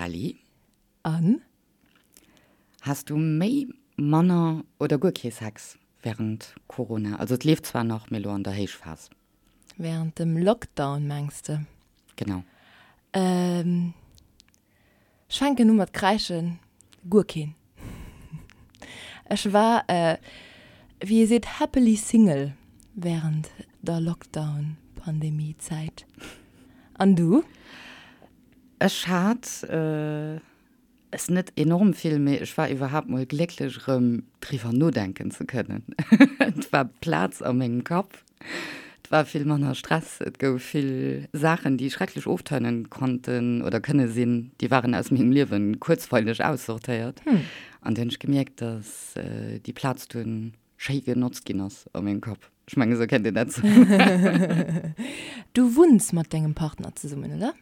Kelly. An? Has du méi, manner oder guer kee Sex während Corona? Also et leeft zwar nach, mee elo an der Héichphas. Während dem Lockdown mengs de? Genau. Ech fänken u mat kräischen, guer keen. Ech war, wéi ee seet, happily single während der Lockdown-Pandemie-Zäit. An du? Ech hat es net enorm vill, mee ech war iwwerhaapt mol glécklech erëm driwwer nodenken ze kënnen. Et war Plaz a mengem Kapp, et war vill manner Stress, et gouf vill Saachen, déi schrecklech oftörnend konnten oder kënne sinn, déi waren aus mengem Liewen kuerzweileg aussortéiert. An du hunn ech gemierkt, dass déi Plaz dunn schéi genotzt ginn ass a mengem Kapp. Ech mengen, esou kennt een dat soen. Du wunns mat dengem Partner zesummen, oder?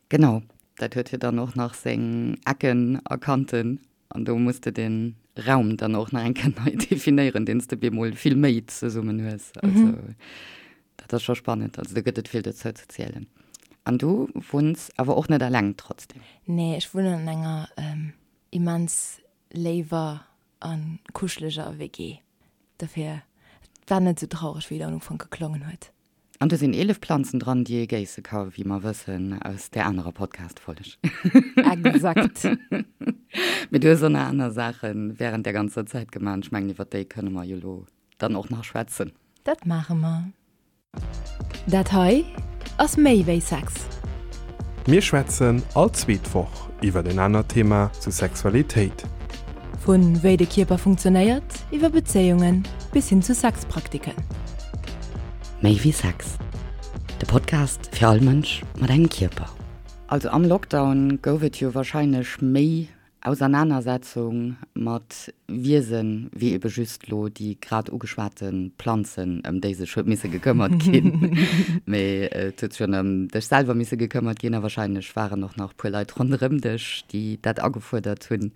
Genau, dat huet jo dann och nach seng Ecken a Kanten an do muss de den Raum dann och nach eng Kéier nei definéieren, deen s de bemol vill méi zesummen hues. Also dat ass scho spannend, also do gëtt et vill dozou ze zielen. An du wunns awer och net eleng trotzdem? Nee, ech wunnen an enger immens léiwer a kuscheleger WG. Dofir, et war net esou traureg, wéi et am Ufank geklongen huet. An do sinn 11 Planzen dran, déi ee géisse ka, wéi mer wëssen aus där anerer Podcast-Folg. Exakt. Mee du hues och nach aner Saache wärend där ganzer Zäit gemaach an ech mengen, iwwer déi kënne mer jo elo dann och nach schwätzen. Dat maache mer. Dat hei ass méi wéi Sex. Mir schwätzen all zweet Woch iwwer en anert Thema zu Sexualitéit. Vu wéi de Kierper funktionéiert, iwwer Bezéiungen bis hin zu Sexpraktiken. Méi wéi Sex, de Podcast fir all Mënsch mat engem Kierper. Also am Lockdown gouf et jo warscheinlech méi Ausernanersetzung mat Wiesen, wéi ebe just lo déi grad ugeschwate Planzen, ëm déi sech huet misse gekëmmert ginn. Mee et huet sech jo ëm dech selwer misse gekëmmert ginn a wahrscheinlech waren och nach e puer Leit ronderëm dech, déi dat agefuerdert hunn.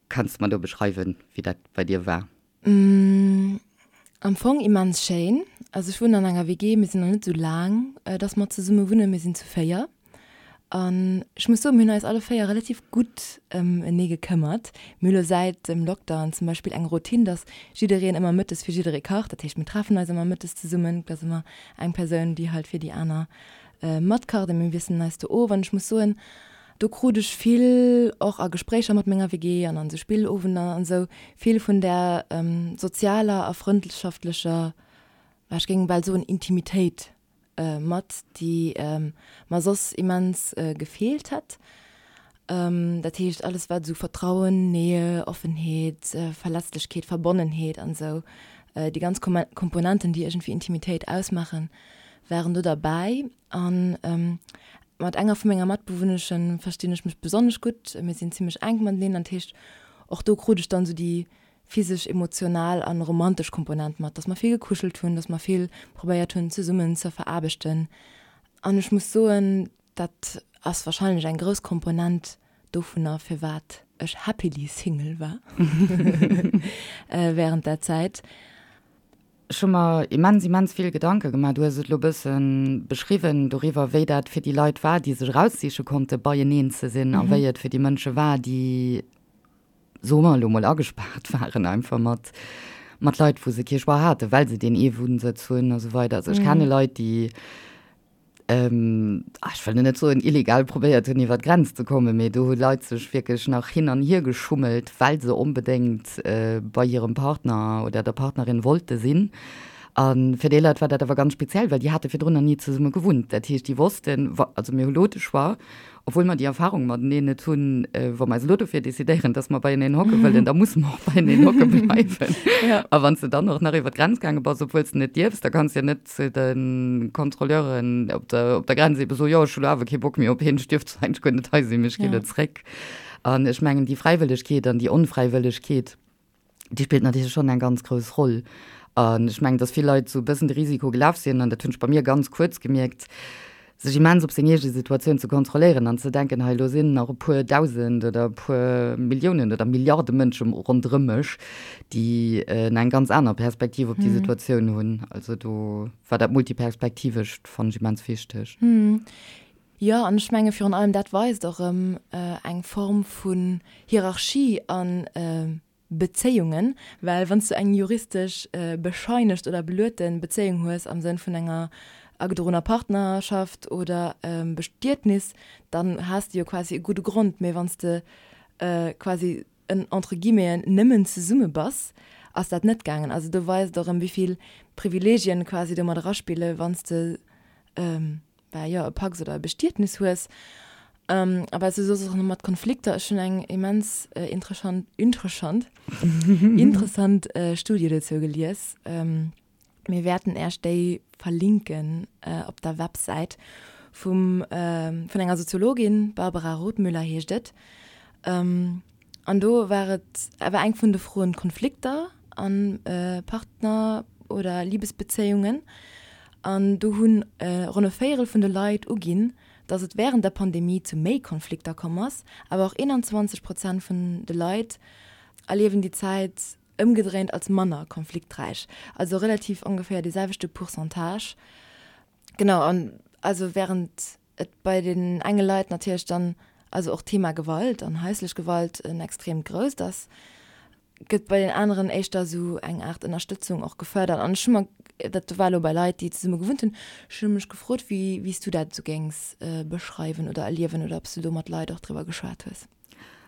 Kanns de mer do beschreiwen, wéi dat bei dir war? Am Fong immens schéin. Also ech wunnen an enger WG, mir sinn nach net esou laang, dass mer zesumme wunnen, mir sinn zu 4. An ech muss soen, mir hunn eis alle 4 relativ gutt ëm enee gekëmmert. Mir hu lo säit dem Lockdown zum Beispill eng Routine, dass jiddereen ëmmer mëttes fir jidderee kacht. Dat heescht, mir treffen eis ëmmer mëttes zesummen, et ass ëmmer eng Persoun, déi halt fir déi aner matkacht a mir wiesselen eis do of. An ech muss soen, Do krut ech vill, och a Gespréicher mat menger WG an an esou Spillowender an esou, vill vun där sozialer a frëndschaftlecher, ech géing bal soen Intimitéit mat, déi mer soss immens gefeelt hätt. Dat heescht alles wat esou Vertrauen, Nähe, Offenheet, Verletzlechkeet, Verbonnenheet an esou, déi ganz Komponenten, déi iergendwéi Intimitéit ausmaachen, waren do derbäi. An mat enger vu menger Matbewunneschen verstinn ech mech besonnesch gutt. Mir sinn zimmlech enk mateneen an dat heescht, och do krut ech dann esou déi physesch, emotional an romantesch Komponent mat, dass mer vill gekuschelt hunn, dass mer vill probéiert hunn zesummen ze veraarbechten. An ech muss soen, dat ass wahrscheinlech eng grouss Komponent dovunner, firwat ech happily single war während där Zäit. Ech hu mer immens, immens vill Gedanke gemaach. Du hues et elo e bësse beschriwwen doriwwer, wéi dat fir déi Leit war, déi sech eraussiche konnte beieneen ze sinn a wéi et fir déi Mënsche war, déi, soe mer elo mol, agespaart waren einfach mat, mat Leit, wou se kee Choix haten, well se deen ee Wunnsëtz hunn a sou weider. Also ech kenne Leit, déi ech wëll net soen illegal probéiert hunn iwwer d'Grenz ze kommen, mee do hu Leit sech wierklech nach hin an hier geschummelt, well se onbedéngt bei hirem Partner oder der Partnerin wollte sinn. A fir déi Leit war dat awer ganz speziell, well déi hate virdrun nach ni zesumme gewunnt. Dat heescht, déi wossten, also mir hu lo de Choix, Obwuel mer déi Erfahrung mateneen net hunn, wa mer eis elo dofir decidéieren, dass mer beieneen hocke wëllen, da musse mer och beieneen hocke bleiwen. Ja. A wann s de dann och nach iwwer d'Grenz gaange bass, obwuel s de net dierfs, da kanns de jo net zu de Kontrolleuren op der, op der Grenz ebe soen, jo, ech hu lo awer kee Bock méi op hien, ech dierf zwar eigentlech guer net hei sinn, mee ech gi lo zréck. An ech mengen, déi Fräiwëllegkeet an déi Onfräiwëllegkeet, déi spillt natierlech schonn eng ganz grouss Roll. An ech mengen, datt vill Leit esou e bëssen de Risiko gelaf sinn, an dat hunn ech bei mir ganz kuerz gemierkt, sech immens op seng eege Situatioun ze kontrolléieren an ze denken, hei elo sinn nach e puer Dausend oder e puer Milliounen oder Milliarde Mënsche ronderëm mech, déi eng ganz aner Perspektiv op déi Situatioun hunn. Also do war dat Multiperspektivescht, fannen ech immens wichteg. Jo, an ech menge virun allem dat weist och erëm eng Form vun Hierarchie a Bezéiungen, well wann s du eng juristesch bescheinegt oder beluete Bezéiung hues am Sënn vun enger agedroener Partnerschaft oder Bestietnis, dann has de jo quasi e gudde Grond. Mee wann s de quasi en entre guillemeten nëmmen zesumme bass, ass dat net gaangen. Also do weist et och erëm, wéi vill Privilegien quasi do mat eraspille wann s de bah jo, e Pacs oder e Bestietnis hues. A wat s du soss och nach mat Konflikter, ech hunn eng immens interessant, interessant, interessant Studie dozou gelies. Mir wäerten Äech déi verlinken op der Websäit vum, vun enger Soziologin, Barbara Rothmüller heescht et. An do war et awer eng vun de Froen Konflikter a Partner oder Libesbezéiungen. An do hunn ronn e Véierel vun de Leit uginn, datt et wärend der Pandemie zu méi Konflikter komm ass. Awer och 21 Prozent vun de Leit erliewen déi Zäit ëmgedréint als manner konflikträich. Also relativ ongeféier dee selwechte Pourcentage. Genau, an also wärend et bei den enge Leit natierlech dann, also och d'Thema Gewalt an haislech Gewalt en extreemt grousst ass, gëtt bei den aneren éischter esou eng Aart Ënnerstëtzung och gefërdert. An ech hu mer, dat war elo bei Leit, déi zesumme gewunnt hunn, ech hu mech gefrot, wéi wéi s du dat esou géings beschreiwen oder erliewen oder ob s du do mat Leit och driwwer geschwat hues.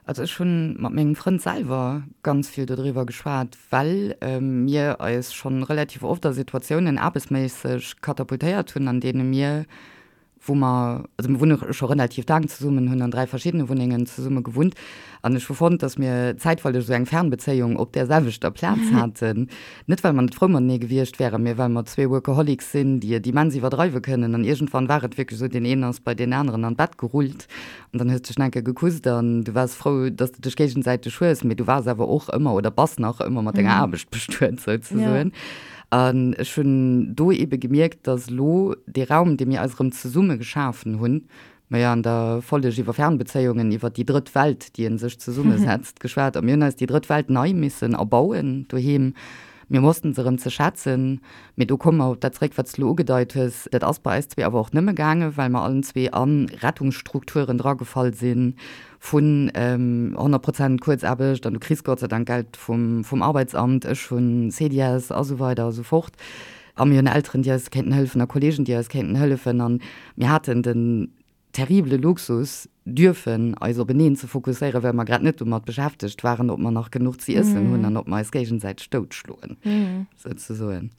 Also ech hunn mat mengem Frënd selwer ganz vill dodriwwer geschwat, well mir eis schonn relativ oft a Situatiounen aarbechtsméisseg katapultéiert hunn, an deene mir, wou mer, also mir wunne scho relativ laang zesummen, hunn an 3 verschiddene Wunnengen zesumme gewunnt an ech hu fonnt, datt mir zäitweileg esou eng Fernbezéiung op där selwechter Plaz haten. Net well mer net frou matenee gewiescht wären, mee well mer zwee Workaholics sinn, déi et immens iwwerdreiwe kënnen an iergendwann war et wierklech esou, deen een ass bei deen aneren an d'Bett gerullt An dann hues de dech nach eng Kéier gekusst an du waars frou, dass de dech géigesäiteg hues, mee du waars awer och ëmmer oder bass nach ëmmer mat denger Aarbecht bestuet souzesoen. An ech hunn do eebe gemierkt, dass elo dee Raum, dee mir eis erëm zesumme geschafen hunn, mer jo an der Folleg iwwer Fernbezéiungen, iwwer déi drëtt Welt, déi ee sech zesummesetzt, geschwat a mir hunn eis déi drëtt Welt nei missen erbauen doheem. Mir wossten se erëm ze schätzen. Mee do komme mer op dat zréck, wat s de elo ugedeit hues. Dat ass bei eis zwee awer och nëmme gaangen, well mer allen zwee a Rettungsstrukturen dragefall si vun 100 Prozent Kuerzaarbecht an du kriss Gott sei Dank Geld vum, vum Arbeitsamt, ech hunn CDS a sou weider a sou fort. A mir hunn Elteren, déi eis kéinten hëllefen a Kolleegen, déi eis kéinten hëllefen. A mir haten den terribele Luxus, dürfen eis openeen ze fokusséieren, well mer grad net domat beschäftegt waren, ob mer nach genuch ze iessen hunn an ob mer eis géigesäiteg doutschloen, souzesoen.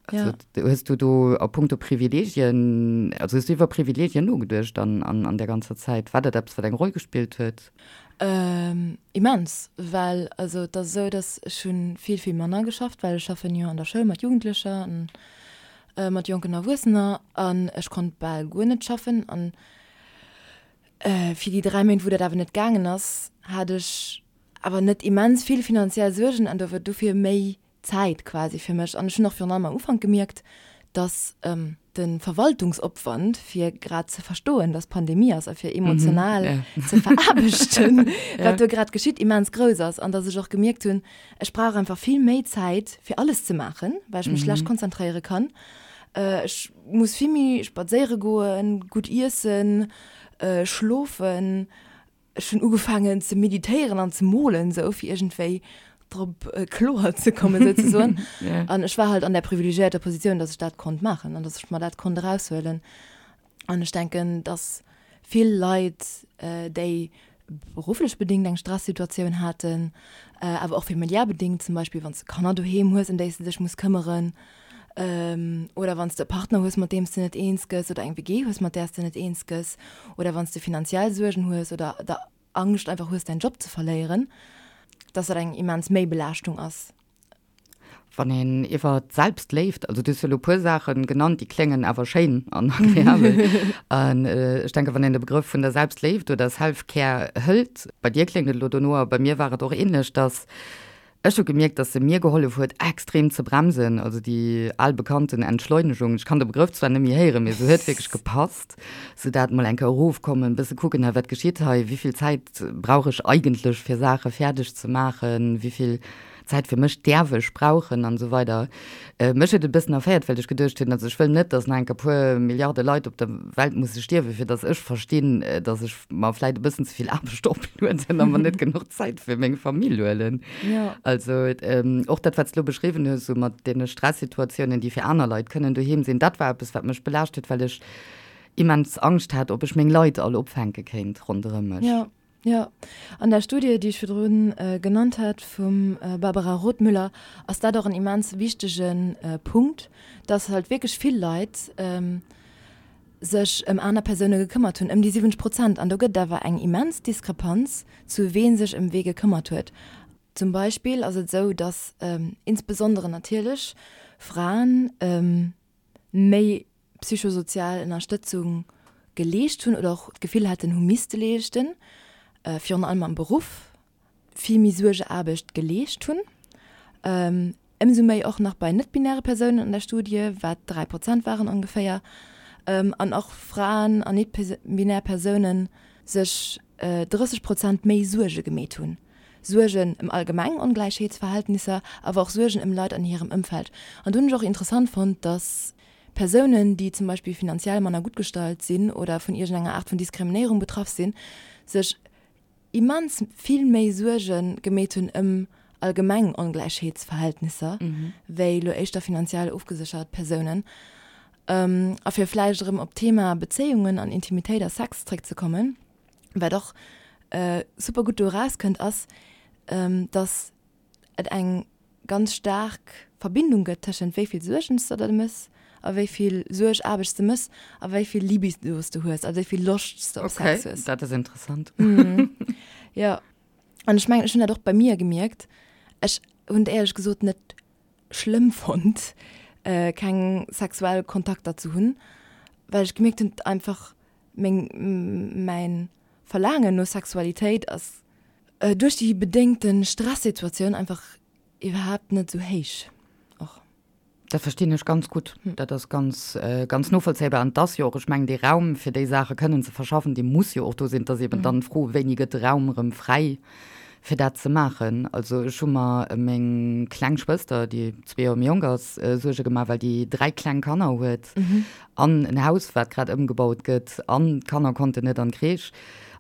Also, hues du do a puncto Privilegien, also hues du iwwer Privilegien nogeduecht an, an, an där ganzer Zäit? War dat eppes, wat eng Roll gespillt huet? Immens, well also et ass esou, datt ech hu vill, vill manner geschafft, well ech schaffen jo an der Schoul mat Jugendlecher an mat jonken Erwuessener an ech konnt bal guer net schaffen an fir déi 3 Méint wou dat awer net gaangen ass, hat ech awer net immens vill finanziell Suergen an do dofir méi Zäit quasi fir mech. An ech hunn och virun allem am Ufank gemierkt, dass de Verwaltungsopwand fir grad ze verstoen, dass Pandemie ass a fir emotional ze veraarbechten, wat do grad geschitt, immens grouss ass an dass ech och gemierkt hunn, Ech brauch einfach vill méi Zäit fir alles ze maachen, well ech mech schlecht konzentréiere kann. Ech muss vill méi spadséiere goen, gutt iessen, schlofen. Ech hunn ugefaangen ze meditéieren an ze molen, sou fir iergendwéi drop kloer ze kommen, souzesoen. An ech war halt an där privilegiéierter Positioun, dass ech dat konnt maachen an dass ech mer dat konnt eraushuelen. An ech denken, dass vill Leit, déi berufflech bedéngt eng Stressituatioun haten, awer och familiär bedéngt, zum Beispill wann s de Kanner doheem hues, ëm déi s de dech muss këmmeren, oder wann s de e Partner hues, mat deem s de net eens gëss, oder eng WG hues, mat där s de net eens gëss, oder wann s de finanziell Suergen hues oder der Angscht einfach hues, däin Job ze verléieren, dass dat eng immens Méibelaaschtung ass. Wann een iwwer d'Selbstléift, also du hues jo elo e puer Saache genannt, déi kléngen awer schéin an agreabel. An ech denke wann een de Begrëff vun der Selbstléift oder Self-Care hëlt, bei dir kléngt et elo dono a bei mir war et och ähnlech, dass ech hu gemierkt, dass se mir gehollef huet extrem ze bremsen, also déi al bekannten Entschleunegung, ech kann de Begrëff zwar net méi héieren, mee se huet wierklech gepasst, sou dat mol eng Kéier erofkommen, bësse kucken, hei wat geschitt hei, wéi vill Zäit brauch ech eigentlech fir Saache fäerdeg ze maachen, wéi vill. Zäit fir mech däerf ech brauchen an esou weider. Mech huet et e bëssen erféiert, well ech geduecht hunn, also ech wëll net, datt nach enk e puer Milliarde Leit op der Welt musse stierwen, fir datt ech verstinn, datt ech mer vläit e bëssen ze vill Aarbecht oplueden a mer net genuch Zäit fir meng Famill huelen. Also och dat, wat s de elo beschriwwen hues, esou mat deene Stressituatiounen, déi fir aner Leit kënnen doheem sinn, dat war eppes, wat mech belaascht huet, well ech immens Angscht hat, ob ech meng Leit all opfänke kéint ronderëm mech. Jo, jo. An der Studie, déi ech virdru genannt hat vum Barbara Rothmüller, ass dat och en immens wichtege Punkt, dass halt wierklech vill Leit sech ëm aner Persoune gekëmmert hunn, ëm déi 70 Prozent. An do gëtt et awer eng immens Diskrepanz zu wee sech ëm wee gekëmmert huet. Zum Beispill ass et esou, dass insbesondere natierlech Fraen méi psychosozial Ënnerstëtzung geleescht hunn oder och d'Gefill haten, hu misste leeschten, virun allem am Beruff vill méi Suergeaarbecht geleescht hunn, ëmsou méi och nach bei net-binäre Persounen an der Studie, wat 3 Prozent waren ongeféier, an och Fraen an net-binär Persounen sech 30 Prozent méi Suerge gemeet hunn. Suergen ëm allgemeng Ongläichheetsverhältnisser, awer och Suergen ëm Leit an hirem Ëmfeld. An do hunn ech och interessant fonnt, dass Persounen, déi zum Beispill finanziell manner gutt gestallt sinn oder vun iergendenger Aart vun Diskriminéierung betraff sinn, sech immens vill méi Suerge gemeet hunn ëm allgemeng Ongläichheetsverhältnisser wéi elo éischter finanziell ofgeséchert Persounen. A fir vläicht erëm op d'Thema Bezéiungen an Intimitéit a Sex zréckzekommen, wat och super gutt do erauskënnt, ass, dass et eng ganz staark Verbindung gëtt tëschent wéi vill Suergen s de der mëss a wéi vill Suerg-Aarbecht s de mëss a wéi vill Libido s de hues, also wéi vill Loscht s de op Sex hues. Okay, dat ass interessant. Jo, an ech mengen, ech hunn dat och bei mir gemierkt. Ech hunn et éierlech gesot net schlëmm fonnt, keng sexuell Kontakter ze hunn, well ech gemierkt hunn, einfach meng, mäin Verlaangen no Sexualitéit ass duerch déi bedéngte Stressituatioun einfach iwwerhaapt net esou héich och. Dat verstinn ech ganz gutt. Dat ass ganz, ganz novollzéibar. An et ass jo och, ech mengen, dee Raum, fir déi Saache kënnen ze verschaffen, dee muss jo och do sinn. Et ass eben dann d'Fro, wéini gëtt de Raum erëm fräi, fir dat ze maachen. Also ech hu mer ëm meng kleng Schwëster, déi zwee Joer méi jonk ass, Suerge gemaach, well déi dräi kleng Kanner huet. An en Haus, wat grad ëmgebaut gëtt, an d'Kanner konnten net an d'Crèche.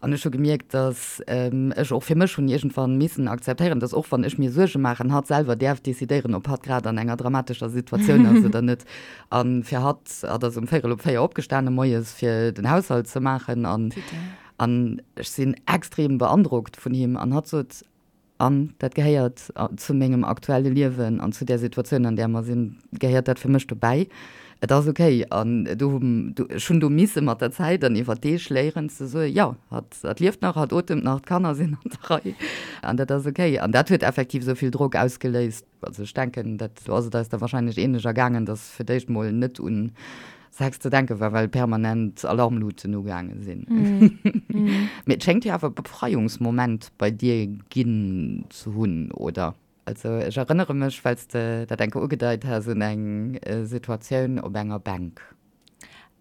An ech hu gemierkt, datt ech och fir mech hunn iergendwann missen akzeptéieren, datt och wann ech mir Suerge maachen, hatt selwer däerf decidéieren, ob hatt grad an enger dramatescher Situatioun ass oder net. A fir hatt, hatt ass um véierel op 4 opgestane moies, fir den Haushalt ze maachen. An, an ech sinn extrem beandrockt vun him. An hatt sot, An dat gehéiert zu mengem aktuelle Liewen an zu där Situatioun, an där mer sinn, gehéiert dat fir mech dobäi. Et ass okay. An do hu, ech hunn do misse mat der Zäit an iwwer Deeg léieren ze soen, jo, hatt, hatt lieft nach, hatt otemt nach, d'Kanner sinn an der Rei an dat ass okay. An dat huet effektiv esou vill Drock ausgeléist. Also ech denken, dat, do ass et eis da wahrscheinlech ähnlech ergaangen, dass fir d'éischt mol net un Sex ze denke war, well permanent Alarmluten ugaange sinn. Mee et schéngt jo awer e Befreiungsmoment bei dir ginn ze hunn, oder? Also ech erënnere mech, well s de dat eng Kéier ugedeit has, un eng Situatioun op enger Bänk.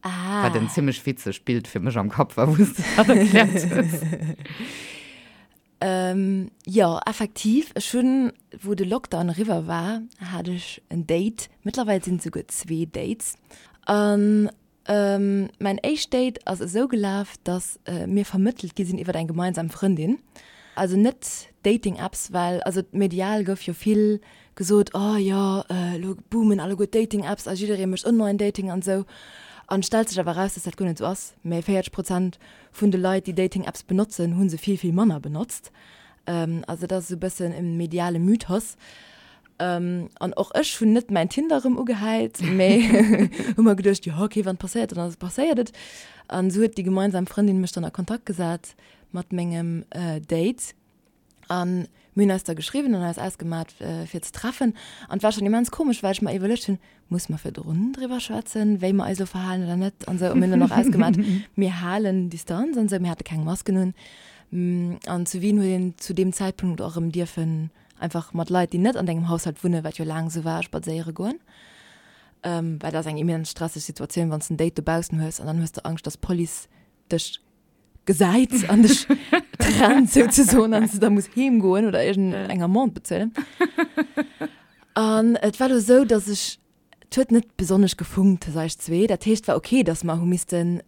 Ah. Wat en zimmlech witzegt Bild fir mech am Kapp war, wou s de dat erkläert hues. Jo, effektiv. Ech hunn, wou de Lockdown eriwwer war, hat ech en Date. Mëttlerweil sinn et souguer zwee Dates. An mäin éischt Date ass esou gelaf, datt mir vermëttelt gi sinn iwwer eng gemeinsam Frëndin. Also net Dating-Apps, well also medial gouf jo vill gesot, oh jo, elo boomen alleguer d'Dating-Apps a jidderee mécht Online-Dating an esou. An et stellt sech awer eraus, datt dat guer net esou ass, mä 40 Prozent vun de Leit, déi Dating-Apps benotzen, hu se vill, vill manner benotzt. Also dat ass esou e bëssen e mediale Mythos. An och ech hunn net mäin Tinder erëm ugehäit, mä hu mer geduecht, jo okay, wann et passéiert, dann ass et passéiert et. An esou huet déi gemeinsam Frëndin mech dann a Kontakt gesat mat mengem Date. An mir hunn eis da geschriwwen an eis ausgemat fir ze treffen. An et war schonn immens komesch, well ech mer iwwerluecht hunn, Muss mer virdrun driwwer schwätzen, wéi mer eis elo verhalen oder net an esou. A mir hunn dann och ausgemat, mir halen Distanz an esou. Mir hate keng Masken un. An zu Wien huet een zu deem Zäitpunkt och erëm dierfen einfach mat Leit, déi net an dengem Haushalt wunnen, wat jo laang esou war, spadséiere goen. Well dat ass eng immens stresseg Situatioun, wann s de en Date dobaussen hues an dann hues de Angscht, dass d'Police dech gesäit an dech. trennt souzesoen an s de da muss heem goen oder iergend eng Amende bezuelen. An et war lo sou, dass ech, et huet net besonnesch gefunkt tëscht eis zwee. Dat heescht, et war ok, dass mer hu missten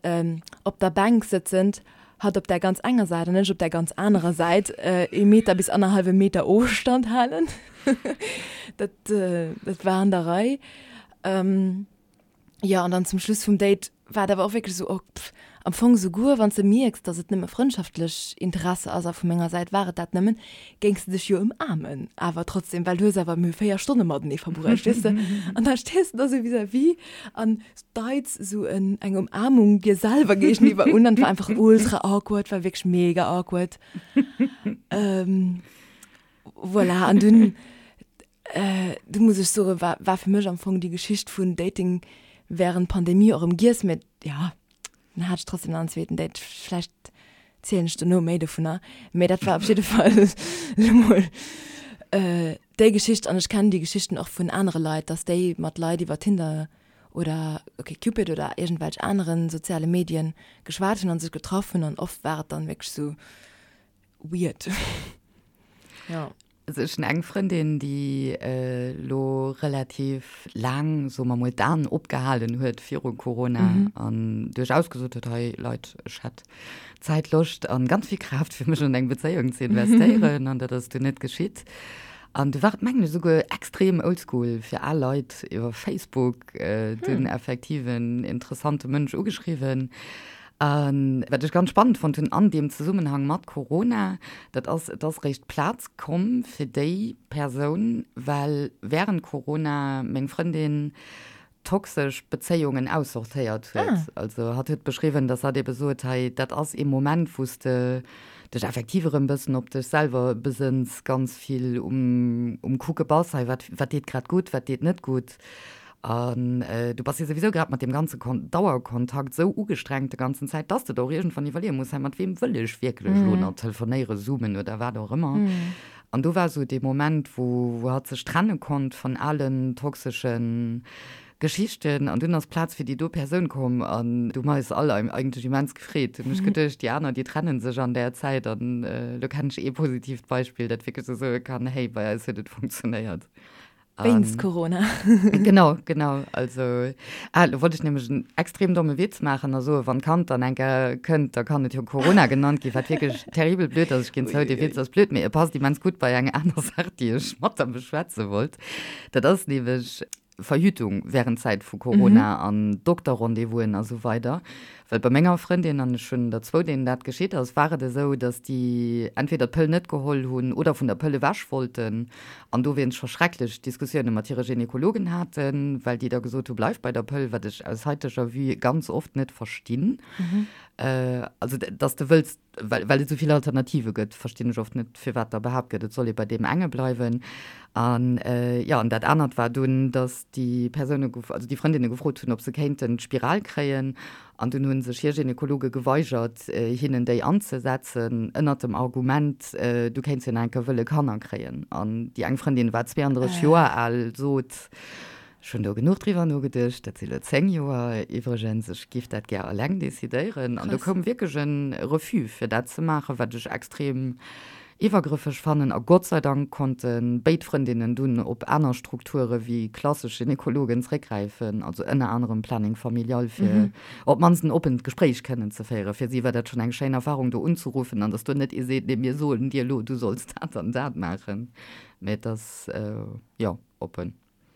op der Bänk sëtzend, hatt op där ganz enger Säit an ech op där ganz anerer Säit, ee Meter bis annerhallwe Meter Ofstand halen. Dat, dat war an der Rei. Jo, an dann zum Schluss vum Date war et awer och wierklech esou, oh, pff, am Fong souguer wann s de mierks, dass et nëmme frëndschaftlech Interesse ass, a vu menger Säit war et dat nëmmen, géings de dech jo ëmaarmen, awer trotzdem, well du hues awer, mir hu 4 Stonne matenee verbruecht, weess de. An da stees de da sou vis-à-vis an deits esou en, eng Umarmung dir selwer géigeniwwer un an et war einfach ultra awkward, war wierklech mega awkward. Voilà, an dunn Du muss ech soen, war, war fir mech am Fong déi Geschicht vun Dating während Pandemie och erëm giess, mä ja, dann hat ech trotzdem nach en zweeten Date. Vläicht zielen ech dono méi dovunner, mä dat war op jidde Fall elo mol déi Geschicht. An ech kennen déi Geschichten och vun anere Leit, dass déi mat Leit iwwer Tinder oder OkCupid oder iergendwelch anere soziale Medien geschwat hunn a sech getraff hunn an oft war et dann wierklech sou weird. Jo. Also ech hunn eng Frëndin, déi elo relativ laang, soe mer mol, d'Aen opgehalen huet viru Corona an duerchaus gesot huet, hei Leit, ech hätt Zäit, Loscht an ganz vill Kraaft fir mech an eng Bezéiung ze investéieren an dat ass dunn net geschitt. An du war et mengen ech esouguer extrem oldschool fir al Leit iwwer Facebook dunn effektiv en interessante Mënsch ugeschriwwen. A wat ech ganz spannend fonnt hunn an deem Zesummenhang mat Corona, dat ass, et ass réischt Plaz komm fir déi Persoun, well während Corona meng Frëndin toxesch Bezéiungen aussortéiert huet. Also hatt huet beschriwwen, dass hatt ebe sot, hei dat ass ee Moment, wou s de dech effektiv erëm bëssen op dech selwer besënns, ganz vill um um Kucke bass, hei wat wat deet grad gutt, wat deet net gutt. An du bass jo souwisou grad mat deem ganze Dauerkontakt esou ugestrengt de ganzen Zäit, dass de der och iergendwann iwwerleeë muss, hei mat weem wëll ech wierklech elo nach telefonéieren, zoomen oder wat och ëmmer. An do war esou dee Moment, wou wou hatt sech trenne konnt vun alen toxesche Geschichten an dunn ass Plaz fir déi do Persoun komm an du hu mer eis all eigentlech immens gefreet. Hunn ech geduecht, déi aner, déi trenne sech an där Zäit an elo kennen ech ee positiivt Beispill, dat wierklech esou soe kann, hey, bei eis huet et funktionéiert. Wéinst Corona. Genau, genau. Also, ah, lo wollt ech nämlech en extrem domme Witz maachen a soen, wann d'Kand dann eng Kéier kënnt, da kann et jo Corona genannt ginn, wat wierklech terribel blöd ass. Ech ginn zou, dee Witz ass blöd, mee e passt immens gutt bei eng aner Saach, déi ech mat der beschwätze wollt. Dat ass nämlech Verhütung während Zäit vu Corona an Dokterrendez-vousen a sou weider. Well bei menger Frëndin, an ech hunn der zwou, deenen dat geschitt ass, war et esou, datt déi entweder d'Pëll net geholl hunn oder vun der Pëll ewech wollten an dowéinst scho schrecklech Diskussioune mat hire Gynekologen haten, well déi da gesot hu bleif bei der Pëll, wat ech aus haiteger Vue ganz oft net verstinn. Also datt s de wëlls Well, well et esou vill Alternative gëtt, verstinn ech oft net, firwat da behaapt gëtt, et soll ee bei deem enge bleiwen. An, jo, an dat anert war dunn, datt déi Persoune, also déi Frëndinne gefrot hunn, ob se kéinten d'Spiral kréien. An dunn hu sech hir Gynekologe geweigert, hinnen déi anzesetzen, ënnert dem Argument, du kéints jo nach eng Kéier wëlle Kanner kréien. An déi eng Frëndin war 32 Joer al, sot, Ech hunn do genuch driwwer nogeduecht, dat si lo 10 Joer iwwregens, ech giff dat gär alleng decidéieren. An do koum wierklech e Refus fir dat ze maachen, wat ech extrem iwwergrëffeg fannen. A Gott sei Dank konnte béid Frëndinnen dunn op aner Strukture wéi klassesch Gynekologen zréckgräifen, also ënner anerem Planning Familial, fir op d'mannst en oppent Gespréich kënnen ze féieren. Fir si war dat schonn eng schéin Erfarung, do unzeruffen an datt do net ee seet, nee mir soen dir elo, du solls dat an dat maachen, mä et ass, jo, oppen.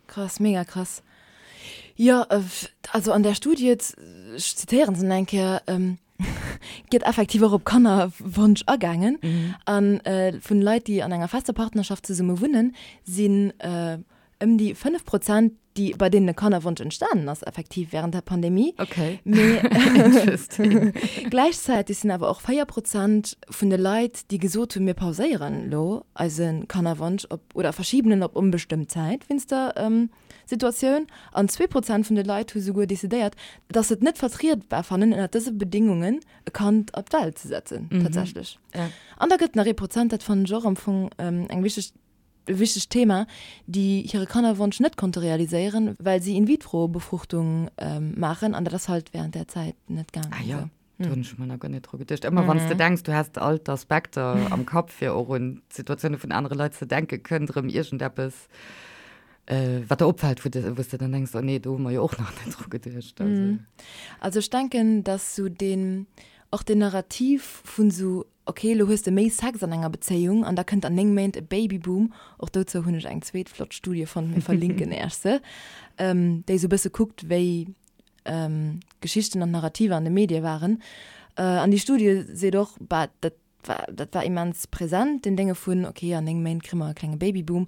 Krass, mega krass. Jo, also an där Studie, ech zitéieren se nach eng Kéier, gëtt effektiv och op Kannerwonsch agaangen. A vun Leit, déi an enger fester Partnerschaft zesumme wunnen, sinn ëm déi 5 Prozent, déi, bei deenen e Kannerwonsch entstanen ass effektiv wärend der Pandemie. Okay. Mee Interesting. gläichzäiteg sinn awer och 4 Prozent vun de Leit, déi gesot hunn, mir pauséieren elo eise Kannerwonsch op oder verschiben en op onbestëmmt Zäit wéinst der Situatioun. An 2 Prozent vun de Leit hu souguer decidéiert, dass se et net vertrietbar fannen, ënner dëse Bedéngungen e Kand op d'Welt ze setzen, tatsächlech. An da gëtt nach ee Prozent, dat fannen ech och am Fong eng wichteg, e wichtegt Thema, déi hire Kannerwonsch net konnte realiséieren, well si In-vitro-Befruchtung maachen an dat ass halt wärend där Zäit net gaangen. Ah jo. Do hunn ech mer nach guer net dru geduecht. Ëmmer wann s de denks, du häss all d'Aspekter am Kapp, fir och un d'Situatioune vun anere Leit ze denken, kënnt erëm iergendeppes, wat der opfält, wou de, wou s de dann denks, oh nee, do hu mer jo och nach net dru geduecht. Also. Also ech denken, dass sou deen, och deen Narrativ vun sou, ok, elo hues de méi Sex an enger Bezéiung an da kënnt an 9 Méint e Babyboom, och dozou hunn ech eng zweet flott Studie fonnt, mir verlinken Äech se, déi sou e bësse kuckt, wéi d'Geschichten an d'Narrativer an de Medie waren. An déi Studie seet och, bah, dat war, dat war immens present, deen Dénge vun, ok, an 9 Méint kréie mer e klenge Babyboom.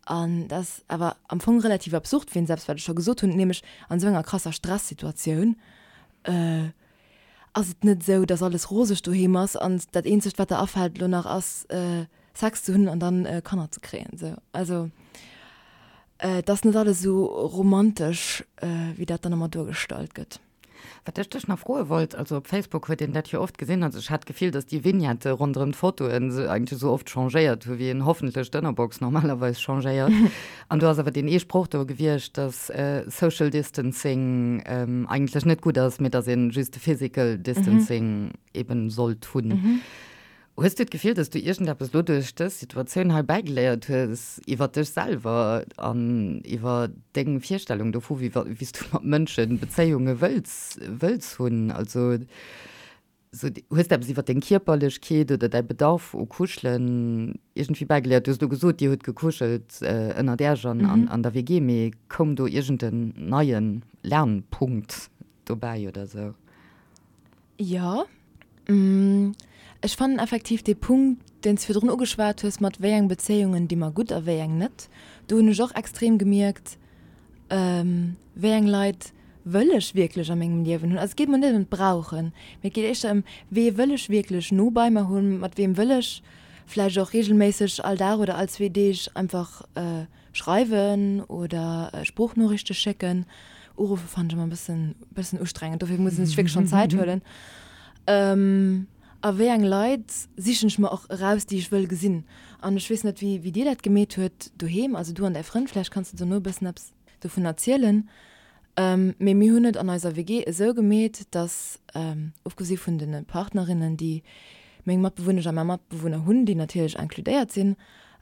An dat ass awer am Fong relativ absurd, wéinst eppes, wat ech scho gesot hunn, nämlech an esou enger krasser Stressituatioun ass et net esou, dass alles roseg doheem ass an dat eenzegt, wat der afält elo nach ass, Sex ze hunn an dann Kanner ze kréien. Esou. Also et ass net alles esou romantesch, wéi dat dann ëmmer duergestallt gëtt. Wat ech dech nach froe wollt, also op Facebook huet een dat jo oft gesinn, also ech hat d'Gefill, datt déi Vignette ronderëm d'Fotoen se eigentlech esou oft changéiert hu wéi een hoffentlech d'Ënnerbox normalerweis changéiert. An do ass awer deen ee Sproch do gewiescht, datt Social Distancing eigentlech net gutt ass, mee datt een just de Physical Distancing eben sollt hunn. Hues du d'Gefill, datt du iergendeppes lo duerch dës Situatioun hei bäigeléiert hues iwwer dech selwer an iwwer deng Virstellung dovu, wéi wéi s du mat Mënsche Bezéiunge wëlls wëlls hunn? Also sou hues de eppes iwwer deng Kierperlechkeet oder däi Bedarf u Kuschelen iergendwéi bäigeléiert? Du hues elo gesot, dir hutt gekuschelt ënnert Äerch an an der WG, mee koum do iergend en neie Lernpunkt dobäi oder sou? Jo, ech fannen effektiv dee Punkt, deen s de virdrun ugeschwat hues, mat wéi eng Bezéiungen di mer gutt a wéi eng net, do hunn ech och extrem gemierkt, wéi eng Leit wëll ech wierklech a mengem Liewen hunn. Also et geet mer net ëm d'Brauchen, mee et geet éischter ëm, wee wëll ech wierklech no bei mer hunn, mat weem wëll ech vläicht och reegelméisseg all Dag oder all zwee Deeg einfach Schreiwen oder Sproochnoriichte schécken. Uruffe fannen ech ëmmer e bëssen, bëssen ustrengend, dofir muss een sech wierklech schonn Zäit huelen. A wéi eng Leit sichen ech mer och eraus, déi ech wëll gesinn. An ech weess net, wéi, wéi dir dat gemeet huet doheem, also du an däi Frënd, vläicht kanns de dono e bëssen eppes dovun erzielen. Mee mir hunn et an eiser WG esou gemeet, dass, ofgesi vun de Partnerinnen, déi meng Matbewunnesch a mäi Matbewunner hunn, déi natierlech inkludéiert sinn,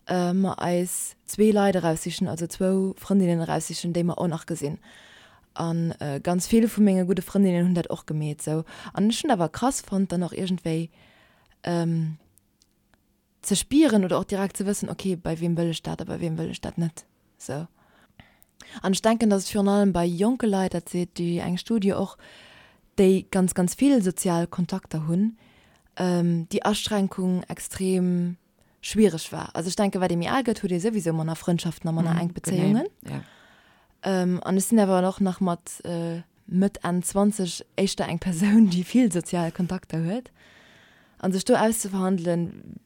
mer eis zwee Leit eraussichen, also zwou Frëndinnen eraussichen, déi mer och nach gesinn. A ganz vill vu menge gudde Frëndinnen hunn dat och gemeet esou. An ech hunn dat awer krass fonnt, dann och iergendwéi ze spieren oder och direkt ze wëssen, okay, bei weem wëll ech dat a bei weem wëll ech dat net esou. An ech denken, datt et virun allem bei jonke Leit, dat seet déi eng Studie och, déi ganz, ganz vill sozial Kontakter hunn, déi Aschränkung extrem schwiereg war. Also ech denken, wat ee méi al gëtt, huet ee souwisou manner Frëndschaften a manner enk Bezéiungen. An ech sinn awer och nach mat Mëtt, Enn 20 éischter eng Persoun, déi vill sozial Kontakter huet. A sech do auszeverhandelen,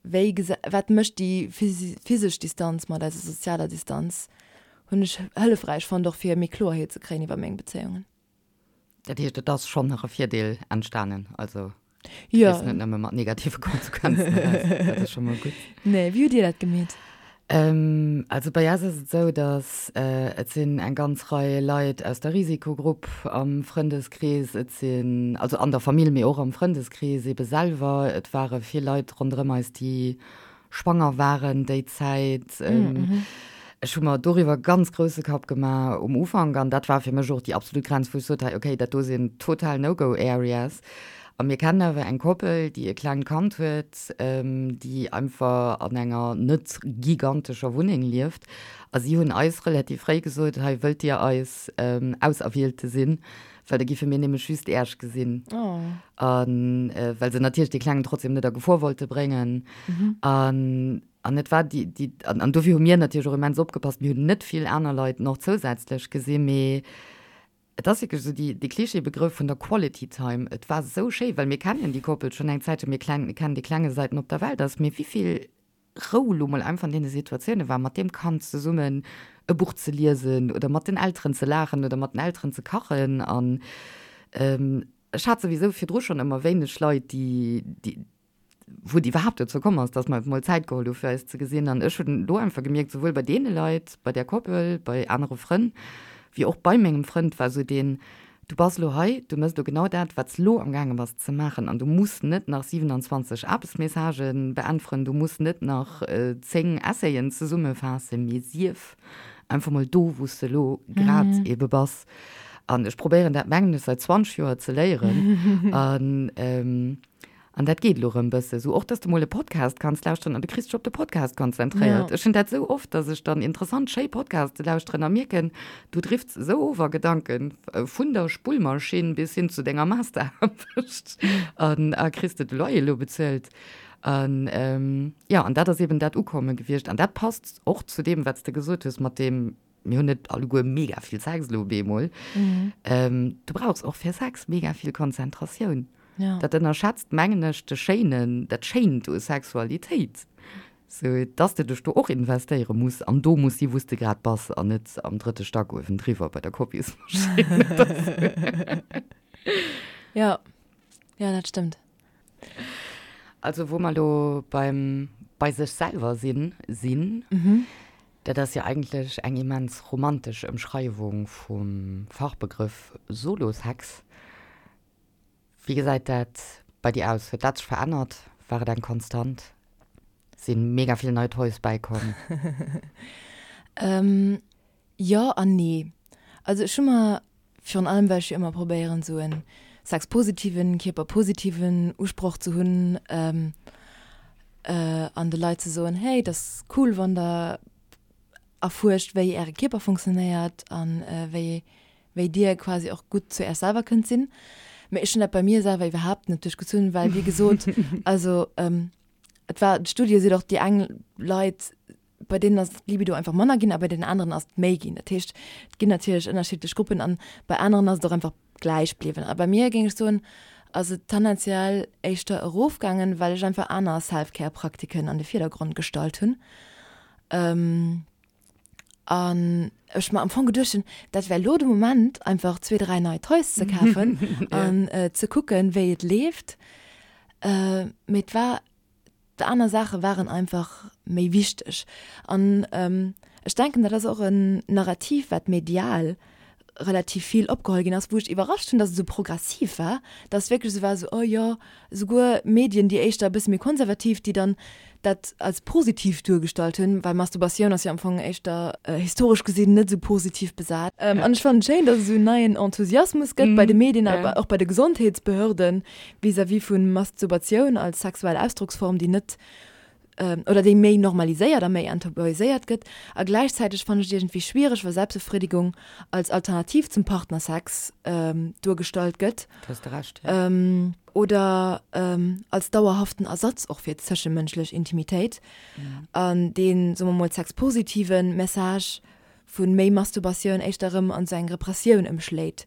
wéi, wat mécht déi physesch Distanz mat eiser sozialer Distanz, hunn ech hëllefräich fonnt, och fir méi Kloerheet ze kréien iwwer meng Bezéiungen. Dat heescht, et ass schonn nach e Virdeel entstanen, also du gees net nëmme mat negative Konsequenzen eraus. Dat ass scho mol gutt. Nee, wéi hutt Dir dat gemeet? Also bei eis ass et esou, datt et sinn eng ganz Rei Leit aus der Risikogrupp am Frëndeskrees, et sinn, also an der Famill, mee och am Frëndeskrees eebe selwer, et ware vill Leit ronderëm eis, déi schwanger waren déi Zäit. Ech hu mer doriwwer ganz grousse Kapp gemaach um Ufank an dat war fir mech och déi absolut Grenz, wou ech sot, hei okay, dat do sinn total No-Go-Areas. A mir kennen awer eng Koppel, déi e klengt Kand huet, déi einfach an enger net gigantescher Wunneng lieft a si hunn eis relativ fréi gesot, hei wëllt Dir eis Auserwielte sinn? Well da giffe mir nämlech just Äerch gesinn. Oh. An äh, well se natierlech dee Klengen trotzdem net a Gefor wollte bréngen. Mhm. An, an et war déi, déi, an, an dofir hu mir natierlech och immens opgepasst. Mir hunn net vill aner Leit nach zousätzlech gesinn, mee et ass wierklech esou déi, dee Klischeebegrëff vun der Quality Time. Et war esou schéi, well mir kennen déi Koppel schonn eng Zäitchen, mir klen, kennen dee Klenge säit en op der Welt ass, mee wéivill Rou lo mol einfach an deene Situatioune war, mat deem Kand zesummen e Buch ze liesen oder mat den Elteren ze laachen oder mat den Elteren ze kachen. An ech hat souwisou virdru schonn ëmmer wéineg Leit, déi, déi, wou et iwwerhaapt dozou komm ass, datt mer mol Zäit geholl hu fir eis ze gesinn. An ech hunn do einfach gemierkt, souwuel bei deene Leit, bei där Koppel, bei anere Frënn, wéi och bei mengem Frënd war esou deen. Du bass elo hei, du méchs elo genau dat, wat s elo amgaange bass ze maachen an du muss net nach 27 Aarbechtsmessagë beäntweren, du muss net nach 10 Essayen zesummefaassen, mee sief einfach mol do, wou s de elo grad ebe bass. An ech probéieren dat, mengen ech, säit 20 Joer ze léieren. An An dat geet elo erëm bësse sou. Och dass de mol e Podcast kanns lauschteren an du kriss dech op de Podcast konzentréiert. Ech hunn dat sou oft, dass ech dann interessant, schéi Podcaste lauschteren a mierken, du drifts esou of a Gedanken, vun der Spullmaschinn bis hin zu denger Masteraarbecht an a kriss de de Loyer elo bezuelt. An jo, an dat ass eben dat Ukomme gewiescht. An dat passt och zu deem, wat s de gesot hues mat deem, mir hunn net alleguer mega vill Sex elo op eemol. Du brauchs och fir Sex mega vill Konzentratioun. Ja. Dat ënnerschätzt, mengen ech, de Schéinen, dat Schéint u Sexualitéit. Sou, dass de dech do och investéiere muss an do muss si wou s de grad bass an net am drëtte Stack uewendriwwer bei der Kopiesmaschinn oder sou. Ja, ja, dat stëmmt. Also wou mer elo beim bei sech selwer sinn sinn, dat ass jo eigentlech eng immens romantesch Ëmschreiwung vum Fachbegrëff Solosex. Wéi gesäit dat bei dir aus? Huet dat sech verännert? War et eng Konstant? Sinn mega vill nei Toys bäikomm? Jo an nee. Also ech hu mer, virun allem well ech jo ëmmer probéieren esou en sexpositiven, kierperpositiven Usproch ze hunn an de Leit ze soen, hey, et ass cool wann der erfuerscht wéi äre Kierper funktionéiert an wéi wéi dir quasi och gutt zu Äech selwer kënnt sinn. Mee ech hunn dat bei mir selwer iwwerhaapt net duerchgezunn, well wéi gesot, also et war, d'Studie seet och, déi eng Leit, bei deenen ass d'Libido einfach manner ginn a bei deenen aneren ass et méi ginn. Dat heescht, et ginn natierlech ënnerschiddlech Gruppen an bei aneren ass et och einfach gläich bliwwen. A bei mir, géing ech soen, ass et tendenziell éischter erofgaangen, well ech einfach aner Self-Care-Praktiken an de Virdergrond gestallt hunn. An ech mer am Fong geduecht hunn, dat wär elo de Moment, einfach zwee, dräi nei Toys ze kafen an ze kucken, wéi et leeft. Mee et war, aner Saache waren einfach méi wichteg. An ech denken, dat ass och en Narrativ, wat medial relativ vill opgeholl ginn ass, wou ech iwwerrascht hunn, datt et esou progressiv war, datt et wierklech esou war, esou, oh jo, esouguer Medien, déi éischter e bësse méi konservativ, déi dann dat als positiv duergestallt hunn, well Masturbatioun ass jo am Fong éischter historesch gesinn net esou positiv besat. An ech fannen et schéin, datt et esou en neien Enthusiasmus gëtt bei de Medien a och bei de Gesondheetsbehörden vis-à-vis vu Masturbatioun als sexuell Ausdrocksform, déi net oder déi méi normaliséiert a méi enttabuiséiert gëtt. A gläichzäiteg fannen ech et iergendwéi schwiereg, wa Selbstbefriedigung als Alternativ zum Partnersex duergestallt gëtt. Do hues de Recht, jo. Oder als dauerhaften Ersatz och fir zëschemënschlech Intimitéit. An deen, soe mer mol, sexpositive Message vu méi Masturbatioun éischter erëm an esou eng Repressioun ëmschléit,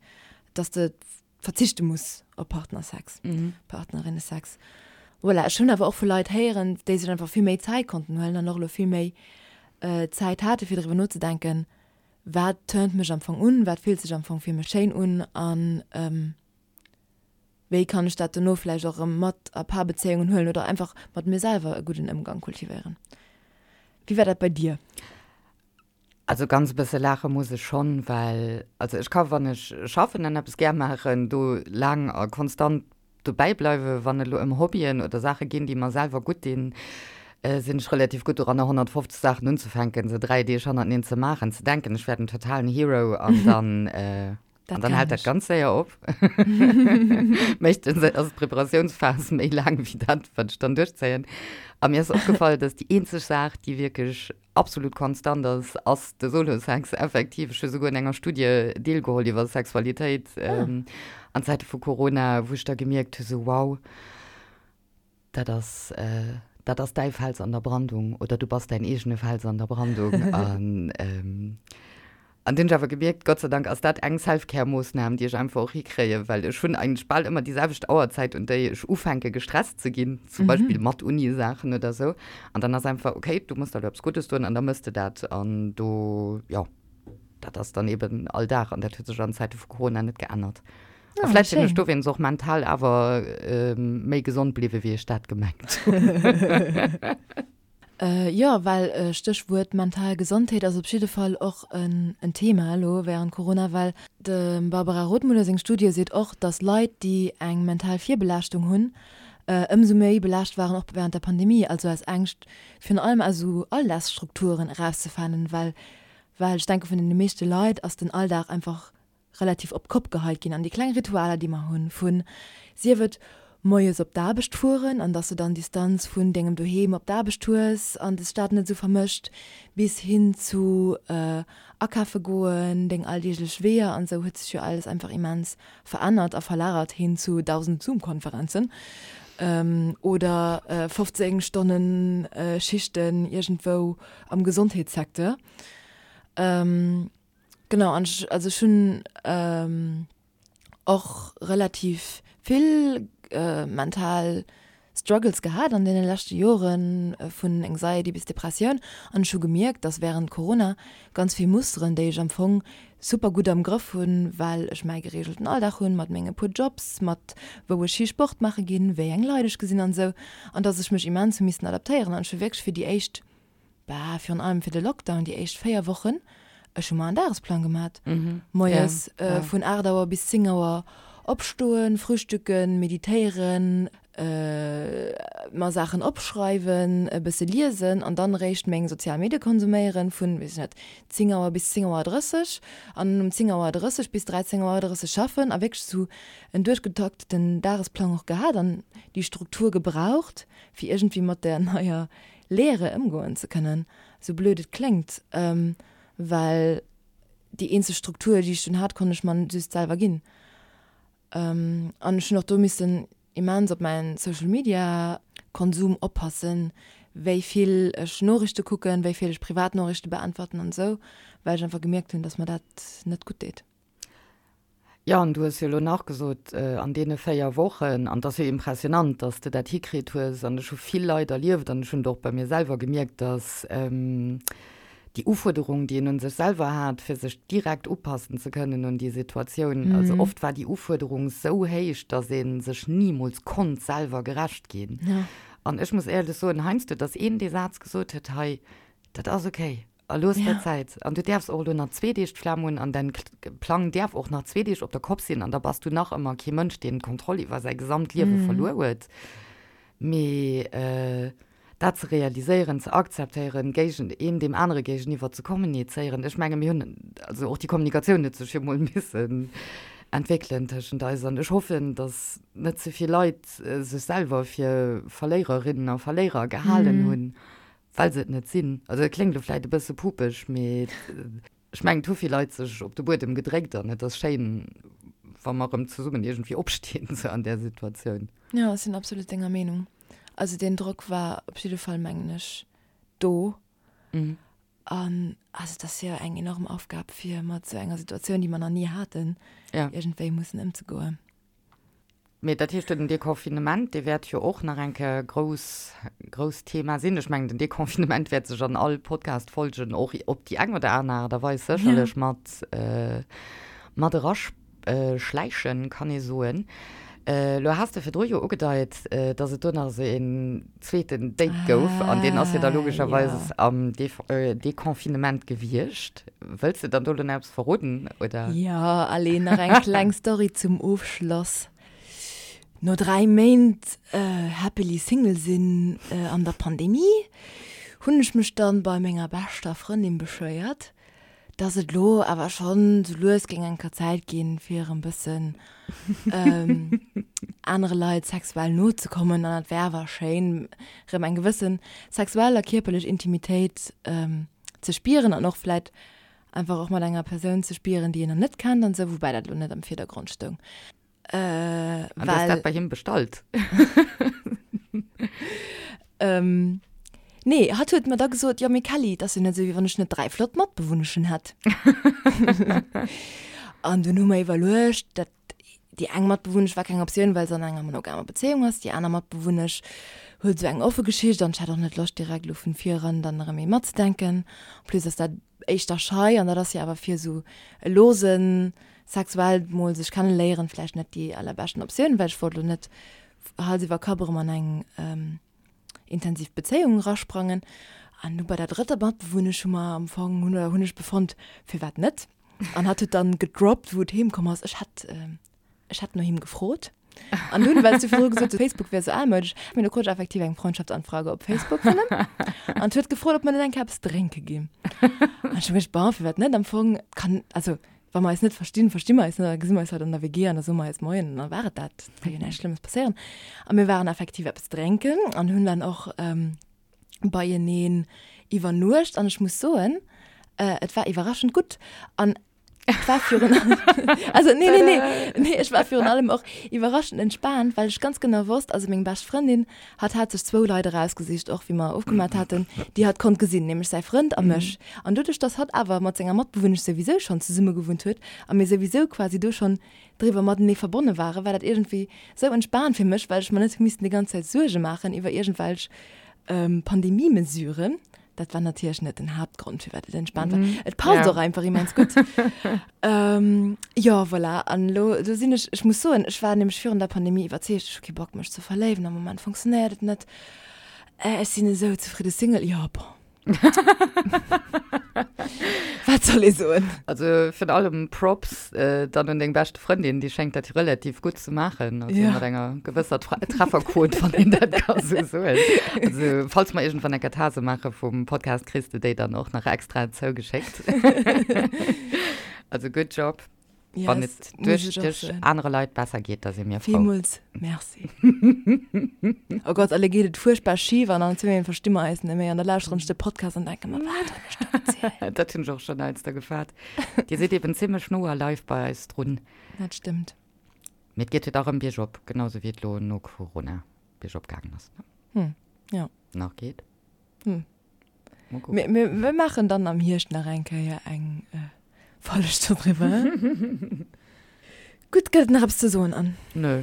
dass de verzichte muss op Partnersex, Partnerinnesex. Voilà, ech hunn awer och vu Leit héieren, déi sech einfach vill méi Zäit konnten huelen an och elo vill méi Zäit hate fir driwwer nozedenken, wat turnt mech am Fong un, wat fillt sech am Fong fir mech schéin un an wéi kann ech dat dono vläicht och erëm mat a Paarbezéiungen huelen oder einfach mat mir selwer e gudden Ëmgang kultivéieren. Wéi war dat bei dir? Also ganz e bësse laache muss ech schonn, well also ech ka wann ech schaffen an eppes gär maachen, do laang a konstant dobäi bleiwen. Wann et elo ëm Hobbyen oder Saache ginn, déi mer selwer gutt dinn, sinn ech relativ gutt doranner 150 Saachen unzefänken, se 3 Deeg hannerteneen ze maachen, ze denken ech wär den totalen Hero an dann An dann hält dat ganz séier op. Meeschtens ass d'Preparatiounsphas méi laang wéi dat, wat ech dann duerchzéien. A mir ass opgefall, dass déi eenzeg Saach, déi wierklech absolut konstant ass, ass de Solo-Sex effektiv. Ech hu souguer un enger Studie deelgeholl iwwer Sexualitéit an Zäite vu Corona, wou ech da gemierkt hu sou, wow, Dat ass, dat ass däi Fels an der Brandung oder du bass däin eegene Fels an der Brandung. An, an dunn hunn ech awer gemierkt, Gott sei Dank ass dat eng Self-Care-Moossnam, déi ech einfach och hikréien, well ech hunn eigentlech bal ëmmer déi selwecht Auerzäit, un déi ech ufänke gestresst ze ginn, zum Beispill mat Uni-Saachen oder sou. An dann ass einfach, okay, du muss der elo eppes Guddes doen an da mëss de dat. An do, jo, dat ass dann eben all Dag an dat huet sech an Zäite vu Corona net geännert. A Ah, vläicht sinn ech schéin. dowéinst och mental awer méi gesond bliwwen, wéi ech dat gemengt hunn. Jo, well Stéchwuert mental Gesondheet ass op jidde Fall och en Thema elo wärend Corona, well dem Barbara Rothmuller seng Studie seet och, datt Leit, déi eng mental Virbelaaschtung hunn, ëmsou méi belaascht waren och wärend der Pandemie, also aus Ängscht virun allem aus esou Alldagsstrukturen erauszefanen, well well ech denke vun deene meeschte Leit ass den Alldag einfach relativ op d'Kopp geheit ginn an déi kleng Ritualer, déi mer hunn, vun, sief et moies op d'Aarbecht fueren an dass de dann Distanz vun dengem Doheem op d'Aarbecht hues an des Stad net esou vermëscht, bis hin zu akafe goen, deng alldeeglech Weeër an esou, huet sech jo alles einfach immens verännert a verlagert hin zu 1.000 Zoom-Konferenzen oder 15 Stonnen Schichten iergendwou am Gesondheetssecteur. Genau, an ech, also ech hunn och relativ vill mental Struggles gehat an deene leschte Joren, vun Anxiety bis Depressioun. An ech hu gemierkt, dass wärend Corona ganz vill Musteren, déi ech am Fong super gutt am Grëff hunn, well ech mäi gereegelten Alldag hunn, mat menge puer Jobs, mat wou ech hi Sport maache ginn, wéi eng Leit ech gesinn an esou, an dass ech mech immens hu missen adaptéieren. An ech hu wierklech fir déi éischt Bah, virun allem fir de Lockdown, déi éischt 4 Wochen, ech hu mer en Dagesplang gemat. Moies vun 8 Auer bis 10 Auer opstoen, frühstücken, meditéieren, mer Saachen opschreiwen, e bësse liesen an dann eréischt meng sozial Medie konsuméieren vun, weess ech net, 10 Auer bis 10 Auer 30 an um 10 Auer 30 bis 13 Auer 30 schaffen a wierklech esou en duerchgetakteten Dagesplang och gehat an déi Struktur gebraucht, fir iergendwéi mat där neier Leere ëmgoen ze kënnen, sou blöd et kléngt, well déi eenzeg Struktur, déi ech dunn hat, konnt ech mer just selwer ginn. An ech hunn och do missen immens op mäin Social Media Konsum oppassen, wéi vill ech Noriichte kucken, wéi vill ech privat Noriichte beäntwerten an esou, well ech einfach gemierkt hunn, dass mer dat net gutt deet. Jo, an du hues jo elo nach gesot, an deene 4 Wochen, an et ass jo impressionant, dass de dat hikritt hues, an ech hu vill Leit erlieft an ech hunn et och bei mir selwer gemierkt, dass déi Ufuerderung, déi een un sech selwer hat, fir sech direkt upassen ze kënnen un déi Situatioun, also oft war déi Ufuerderung esou héich, dass ee sech nimools konnt selwer gerecht ginn. An ech muss éierlech soen, heiansdo, dass een dee Saz gesot huet, hei, dat ass okay, A looss der Zäit. An du däerfs och elo nach zwee Deeg d'Flam hunn an däin Plang däerf och nach zwee Deeg op der Kopp sinn an da bass du nach ëmmer kee Mënsch, deen d'Kontroll iwwer säi gesamt Liewe verluer huet. Mee dat ze realiséieren, ze akzeptéieren, géigen een deem anere géigeniwwer ze kommunizéieren, ech menge mir hunn, also och déi Kommunikatioun huet sech jo mol missen entwéckelen tëschent eis an ech hoffen, datt net ze vill Leit sech selwer fir Verléiererinnen a Verléierer gehalen hunn, Well se et net sinn. Also et kléngt elo vläit e bësse pupeg, mee ech mengen, et hu vill Leit sech op de Buedem gedréckt an et ass schéin, wa mer erëm zesummen iergendwéi opstinn, sou an där Situatioun. Jo, ech sinn absolut denger Meenung. Also deen Drock war op jidde Fall, mengen ech, do. An also et ass jo eng enorm Aufgab, fir mat esou enger Situatioun, déi mer nach ni haten, iergendwéi mussen ëmzegoen. Mee dat heescht, den Deconfinement, dee wäert jo och nach eng Kéier e grouss, grousst Thema sinn. Ech mengen, den Deconfinement wäert sech an all Podcast-Folgen och op déi eng oder aner Aart a Weis sécherlech mat, mat eraschläichen, kann ee soen. Elo has de virdru jo ugedeit, dass et do nach esou een zweeten Date gouf an deen ass jo da logescherweis am Deconfinement gewiescht. Wëlls de dann do elo nach eppes verroden, oder? Jo, allez, nach eng kleng Story zum Ofschloss. No 3 Méint happily single sinn an der Pandemie, hunn ech mech dann bei menger beschter Frëndin beschwéiert, dass et lo awer schonn sou lues géing eng Kéier Zäit ginn, fir erëm bëssen anere Leit sexuell no ze kommen an et wär awer schéin, erëm eng gewësse sexuell a kierperlech Intimitéit ze spieren an och vläit einfach och mat enger Persoun ze spieren, déi een nach net kennt an esou, woubäi dat elo net am Virdergrond stoung. Äh, An du hues dat bei him bestallt? ähm, nee, hatt huet mer da gesot, jo mee Kelly, et ass jo net esou, wéi wann ech net 3 flott Matbewunneschen hätt. An dunn hu mer iwwerluecht, dat déi eng Matbewunnesch war keng Optioun, well se an enger monogamer Bezéiung ass, déi aner Matbewunnesch huet esou eng offe Geschicht an ech hat och net Loscht direkt elo vun vir eran dann erëm ee matzedenken. En plus ass dat éischter schei an dat ass jo awer fir esou e losen sexuell mol sech kenneléieren vläicht net déi allerbeschten Optioun, well ech wollt elo net Hals iwwer Kapp erëm an eng. intensiv Bezéiung erasprangen. An du bei der drëtter Matbewunnesch hu mer am Fong, hunn oder hunn ech befonnt, firwat net? An hatt huet dann gedroppt, wou et heem komm ass, ech hätt, ech hätt no him gefrot. An dunn, well s du virdru gesot hues, Facebook wär sou almoudesch, mee du krut ech effektiv eng Freundschaftsanfrage op Facebook vun him. An huet gefrot, ob mer net eng Kéier eppes drénke ginn. An ech hu geduecht, bon, firwat net? Am Fong kann, also wa mer eis net verstinn, versti mer eis net, da gesi mer eis halt an der WG an da soe mer eis Moien an da war et dat. Et ka jo näischt Schlëmmes passéieren. A mir waren effektiv eppes drénken an hunn dann och beieneen iwwernuecht an ech muss soen, et war iwwerraschend gutt. An et war virun also nee, nee, nee, nee, ech war virun allem och iwwerraschend entspaant, well ech ganz genau wosst, also meng bescht Frëndin, hatt hat sech zwou Leit erausgesicht, och wéi mer ofgemat haten, déi hatt konnt gesinn, nämlech säi Frënd a mech. An doduerch, dass hatt awer mat senger Matbewunnesch souwisou schonn zesummegewunnt huet a mir souwisou quasi do schonn driwwer matenee verbonne waren, war dat iergendwéi sou entspaant fir mech, well ech mer net hu missten déi ganz Zäit Suerge maachen iwwer iergendwelch Pandemie-Mesuren. Dat war natierlech net den Haaptgrond, firwat et entspaant war. Et passt och einfach immens gutt. Jo, voilà. An elo, do sinn ech, ech muss soen, ech war nämlech virun der Pandemie iwwerzeegt, ech hu kee Bock mech ze verléiwen, am Moment funktionéiert et net, ech sinn esou zefridde Single. Jo, bon. Wat soll ee soen? Also virun allem Props dann un deng beschte Frëndin, déi schéngt dat relativ gutt ze maachen, also mat enger gewësser Trefferquot, wann een dat ka sou soen. Also falls mer iergendwann eng Katase maache vum Podcast, kriss de déi dann och nach extra zougeschéckt. Also good job. Yes, Wann et duerch dech anere Leit besser geet, da si mir frou. Villmools Merci. Oh Gott, alle geet et fuerchtbar schif an an zwee versti mer eis net méi an da lauschteren ech de Podcast an denke mer, wat hunn ech do gezielt? Dat hunn ech och schonn heiansdo gefaart. Dir sidd eben zimmlech no a live bei eis drun. Dat stëmmt. Mee et geet jo da rëm biergop, genau sou wéi et lo no Corona biergop gaangen ass, ne? Hm, jo. Nach geet. Hm. Mir, mir, mir maachen dann am Hierscht nach eng Kéier eng äh, Folg doriwwer. Gutt, gëtt et nach eppes ze soen, Anne? Nö.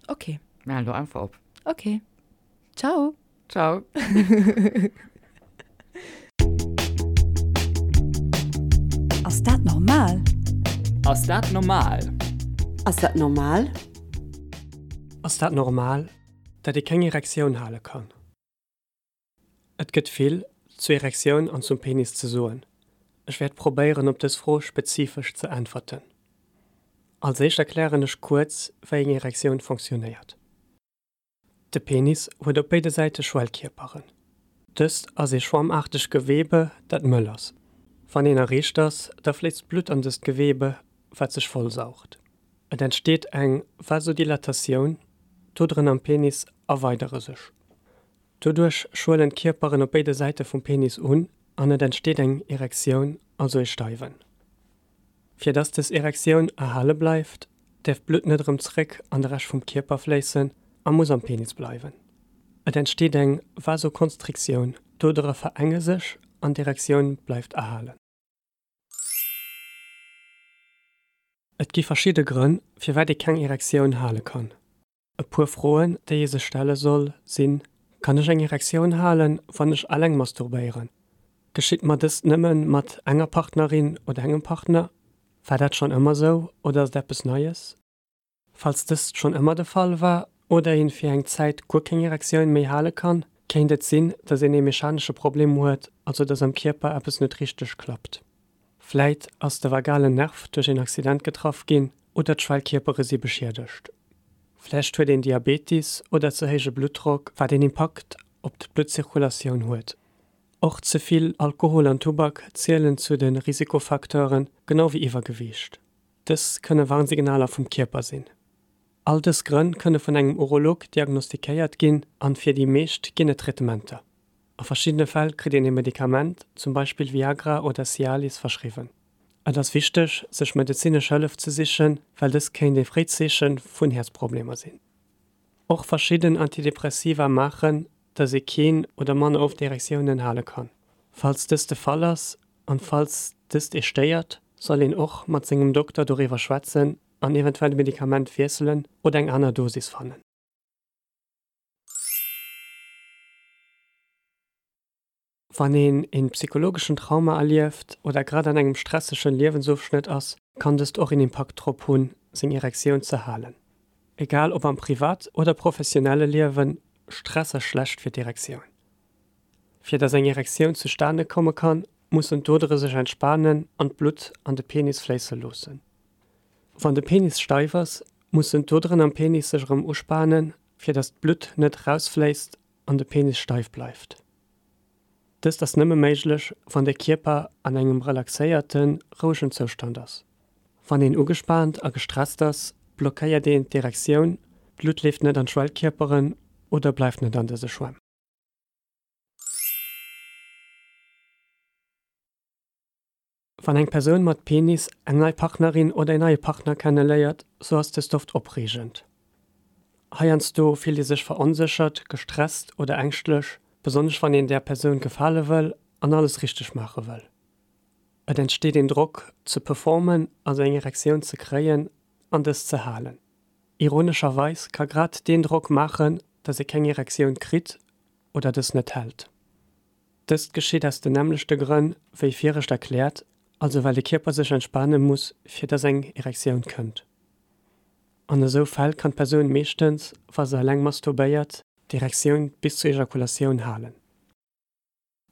Okay. Mir halen do einfach op. Okay. Ciao. Ciao. Ass dat normal? Ass dat normal? Ass dat normal? Ass dat normal, dat ee keng Erektioun hale kann? Et gëtt vill zur Erektioun an zum Penis ze soen. Ech wäert probéieren op dës Fro spezifesch ze äntwerten. Als éischt erklären ech kuerz wéi eng Erektioun fonctionnéiert. De Penis huet op béide Säite Schwellkierperen. Dëst ass ee schwammaartegt Gewebe dat mëll ass. Wann een erreegt ass, da fléisst Blutt an dëst Gewebe wat sech vollsaugt. Et entsteet eng Vasodilatatioun, d'Oderen am Penis erweidere sech. Doduerch schwëllen d'Kierperen op béide Säite vum Penis un an et entsteet eng Erektioun, also ee Steiwen. Fir dass dës Erektioun erhale bleift, däerf d'Blutt net erëm zréck an de Rescht vum Kierper fléissen a muss am Penis bleiwen. Et entsteet eng Vasokonstriktioun, d'Odere verenge sech an d'Erektioun bleift erhalen. Et gi verschidde Grënn, firwat ee keng Erektioun hale kann. E puer Froen, déi ee sech stelle soll, sinn, Kann ech eng Erektioun halen, wann ech alleng masturbéieren? Geschitt mer dëst nëmme mat enger Partnerin oder engem Partner? War dat schonn ëmmer sou oder ass et eppes Neies? Falls dëst schonn ëmmer de Fall war oder een fir eng Zäit guer keng Erektioun méi hale kann, kéint et sinn, dass een ee mechanesche Problem huet, also dass am Kierper eppes net richteg klappt. Vläit ass de vagalen Nerv duerch een Accident getraff ginn oder d'Schwellkierpere si beschiedegt. Vläicht huet een Diabetis oder ze héije Bluttdrock, wat een Impakt op d'Bluttzirkulatioun huet. Och ze vill Alkohol an Tubak zielen zu de Risikofacteuren, genau wéi Iwwergewiicht. Dës kënne Warnsignaler vum Kierper sinn. All dës Grënn kënne vun engem Urolog diagnostikéiert ginn an fir déi meescht ginn et Traitementer. A verschiddene Fäll kritt een ee Medikament, zum Beispill Viagra oder Cialis, verschriwwen. Et ass wichteg, sech medezinesch Hëllef ze sichen, well dëst kéint ee fréit Zeeche vun Häerzproblemer sinn. Och verschidden Antidepressiva maachen, dass ee keen oder manner oft Erektiounen hale kann. Falls dëst de Fall ass an falls dëst ee stéiert, soll een och mat sengem Dokter doriwwer schwätzen an eventuell d'Medikament wiesselen oder eng aner Dosis fannen. Wann een een psychologeschen Trauma erlieft oder grad an engem stressegen Liewensofschnëtt ass, kann dëst och een Impakt drop hunn, seng Erektioun ze halen. Egal ob am privat oder professionelle Liewen, Stress ass schlecht fir d'Erektioun. Fir dass eng Erektioun zustane komme kann, mussen d'Odere sech entspanen an d'Blutt an de Penis fléisse loossen. Wann de Penis steif ass, mussen d'Oderen am Penis sech erëm uspanen, fir dass d'Blutt net erausfléisst an de Penis steif bleift. Dëst ass nëmme méiglech, wann de Kierper an engem relaxéierten, rouegen Zoustand ass. Wann een ugespaant a gestresst ass, blockéiert een d'Erektioun, d'Blutt leeft net an d'Schwellkierperen oder bleift net an dëse Schwämm. Wann eng Persoun mat Penis eng nei Partnerin oder een neie Partner kenne léiert, sou ass dëst oft opreegend. Heiansdo fillt ee sech veronséchert, gestresst oder ängschtlech, besonnesch wann een där Persoun gefale wëll an alles richteg maache wëll. Et entsteet een Drock ze performen, also eng Erektioun ze kréien an dës ze halen. Ironescherweis ka grad deen Drock maachen, dass ee keng Erektioun kritt oder dës net hält. Dëst geschitt aus den nämmlechte Grënn wéi virescht erkläert, also well de Kierper sech entspane muss fir dass eng Erektioun kënnt. An esou Fäll kann d'Persoun meeschtens, wa se eleng masturbéiert, d'Erektioun bis zur Ejakulatioun halen.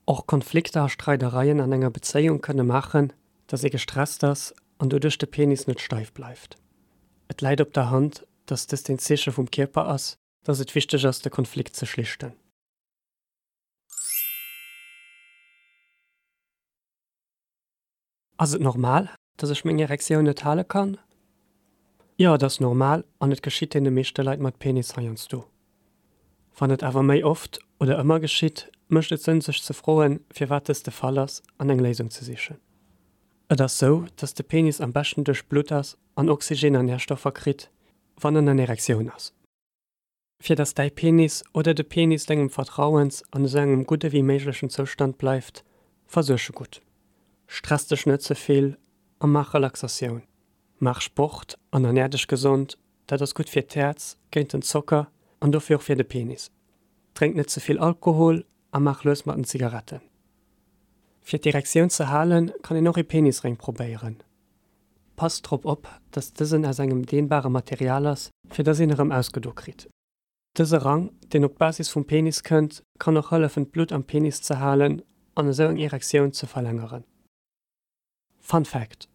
Och Konflikter a Streidereien an enger Bezéiung kënne maachen, dass ee gestresst ass an doduerch de Penis net steif bleift. Et läit op der Hand, dass dëst een Zeeche vum Kierper ass, dass et wichteg ass de Konflikt ze schlichten. Ass et normal, dass ech meng Erektioun net hale kann? Jo, et ass normal an et geschitt deene meeschte Leit mat Penis heiansdo. Wann et awer méi oft oder ëmmer geschitt, mécht et Sënn sech ze froen, firwat dëst de Fall ass an eng Léisung ze sichen. Et ass sou, dass de Penis am beschten duerchblutt ass an Oxygen an Närstoffer kritt, wann en an Erektioun ass. Fir dass däi Penis oder de Penis dengem Vertrauens an esou engem gudde wéi méiglechen Zoustand bleift, versuerg e gutt. Stress dech net ze vill a maach Relaxatioun. Maach Sport an ernär dech gesond, dat ass gutt fir d'Häerz, géint den Zocker an dofir och fir de Penis. Drénk net ze vill Alkohol a maach lues mat den Zigaretten. Fir d'Erektioun ze halen, kann een och ee Penisréng probéieren. Passt drop op, dass dësen aus engem dehnbare Material ass, fir dass een erëm ausgedo kritt. Dëse Rang, deen op d'Basis vum Penis kënnt, kann och hëllefen d'Blutt am Penis ze halen an esou eng Erektioun ze verlängeren. Fun Fact,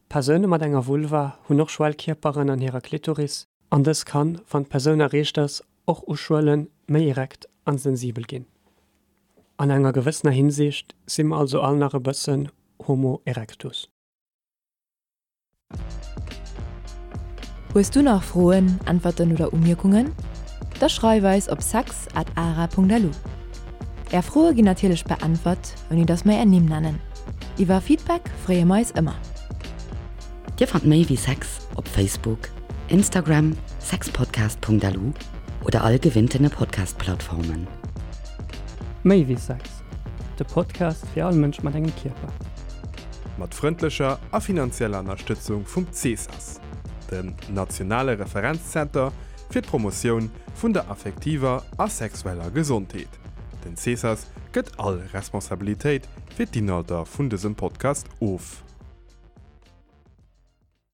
Persoune mat enger Vulva hunn och Schwellkierperen an hirer Klitoris an dës kann, wann d'Persoun erreecht ass, och uschwëllen, méi erekt an sensibel ginn. An enger gewëssener Hinsicht si mer also all nach e bëssen Homo erectus. Hues du nach Froen, Äntwerten oder Umierkungen? Da schreif eis op sex at ara.lu. Är Froe ginn natierlech beäntwert, ouni dass mer är Nimm nennen. Iwwer Feedback freeë mer eis ëmmer. Dir fannt méi wéi Sex op Facebook, Instagram, sexpodcast.lu oder all gewinntene Podcast-Plattformen. Méi wéi Sex, de Podcast fir all Mënsch mat engem Kierper. Mat frëndlecher a finanzieller Ënnerstëtzung vum CESAS, dem nationale Referenzzenter fir d'Promotioun vun der affektiver a sexueller Gesondheet. Den CESAS gëtt all Responsabilitéit fir d'Inhalter vun dësem Podcast of.